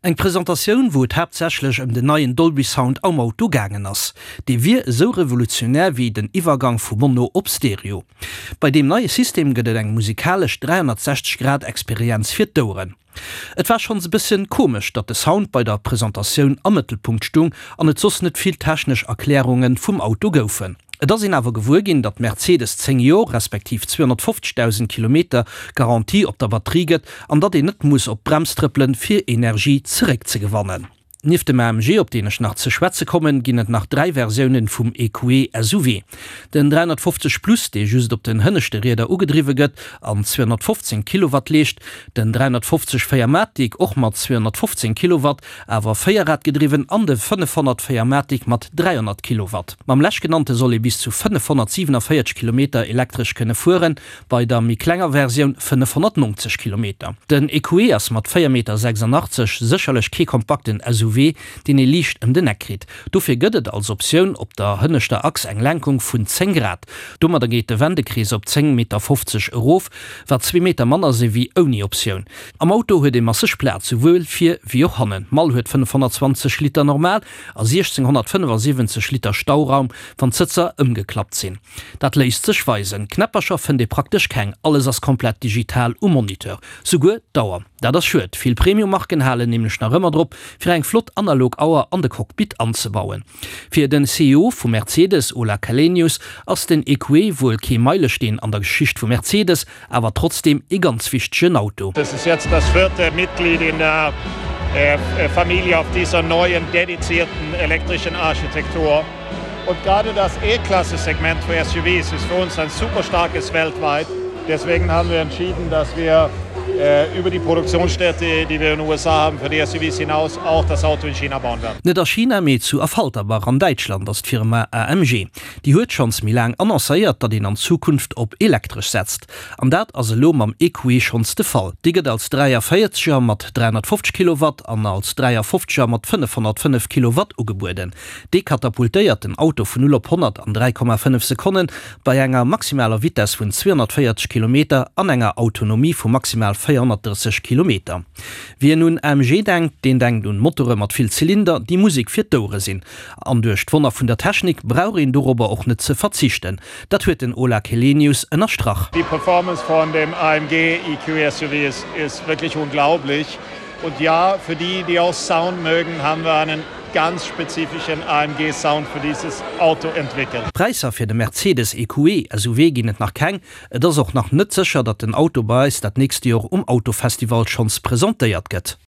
Eng Presentatioun, wou et haaptsächlech ëm den neien Dolby Sound am Auto gaangen ass. Dee wier esou revolutionär wéi den Iwwergang vu Mono op Stereo. Bei deem neie System gëtt et eng musikalesch 360 Grad Experienz fir d'Oueren. Et war schonns e bësschen komesch, datt de Sound bei der Presentatioun am Mëttelpunkt stung an et soss net vill technesch Erklärunge vum Auto goufen. Et ass een awer gewuer ginn, datt Mercedes 10 Jor, respektiv 250.000 Kilometer Garantie op der Batterie gëtt an datt een net muss op d'Brems trëppelen, fir Energie zeréckzegewannen. Nieft dem AMG, op deen ech nach ze schwätze kommen, ginn et nach 3 Versiounen vum EQE SUV. Den 350 Plus, dee just op den hënneschte Rieder ugedriwwe gëtt an 215 Kilowatt leescht, den 350 4MATIC, och mat 215 Kilowatt, awer véierradgedriwwen, an de 500 4MATIC mat 300 Kilowatt. Mam leschtgenannte soll ee bis zu 547 Kilometer elektresch kënne fueren, bei der méi klenger Versioun 590 Kilometer. Den EQE ass mat 4,86 Meter sécherlech kee kompakten SUV, deen ee liicht ëm den Eck kritt. Dofir gëtt et als Optioun op der hënneschter Achs eng Lenkung vun 10 Grad. Domadder geet de Wendekrees op 10,50 Meter erof, wat zwee Meter manner si wéi ouni Optioun. Am Auto huet ee masseg Plaz, souwuel vir wéi och hannen. D'Mall huet 520 Liter normal a 1675 Liter Stauraum, wann d'Sëtzer ëmgeklappt sinn. Dat léisst sech weisen. Knäppercher fënnt ee praktesch keng, alles ass komplett digital um Moniteur, souguer d'Auer. Dat ass schued, vill Premium-Marken halen nämlech nach ëmmer drop, fir eng flott analog Auer an de Cockpit anzebauen. Fir den CEO vu Mercedes, Ola Källenius, ass den EQE wuel kee Meilesteen an der Geschicht vu Mercedes, awer trotzdem ee ganz wichtegen Auto. Das ist jetzt das vierte Mitglied in der Familie auf dieser neuen dedizierten elektrischen Architektur. Und gerade das E-Klasse-Segment für SUVs ist für uns ein super starkes weltweit. Deswegen haben wir entschieden, dass wir über die Produktionsstätte, die wir in den USA haben, für die SUVs hinaus auch das Auto in China bauen werden. Net a China, mee zu Affalterbach an Däitschland ass d'Firma AMG. Déi huet schonns méi laang annoncéiert, datt een an Zukunft op elektresch setzt. An dat ass elo mam EQE schonns de Fall. Dee gëtt als 43er mat 350 Kilowatt an als 53er mat 505 Kilowatt ugebueden. Dee katapultéiert den Auto vun 0 op 100 an 3,5 Sekonnen bei enger maximaler Vitess vun 240 Kilometer an enger Autonomie vu maximal 430 Kilometer. Wien un AMG denkt, deen denkt un Motore mat vill Zylinder, déi Musek fir d'Ouere sinn. An duerch d'Wonner vun der Technik brauch een dorobber och net ze verzichten. Dat huet den Ola Källenius ënnerstrach. Die Performance von dem AMG EQ SUV ist ist wirklich unglaublich. Und ja, für die, die auch Sound mögen, haben wir einen ganz spezifischen AMG Sound für dieses Auto entwickelt. Präisser fir de Mercedes EQE SUV ginn et nach keng. Et ass och nach net sécher, datt den Auto bei eis dat nächste Joer um Autofestival schonns presentéiert gëtt.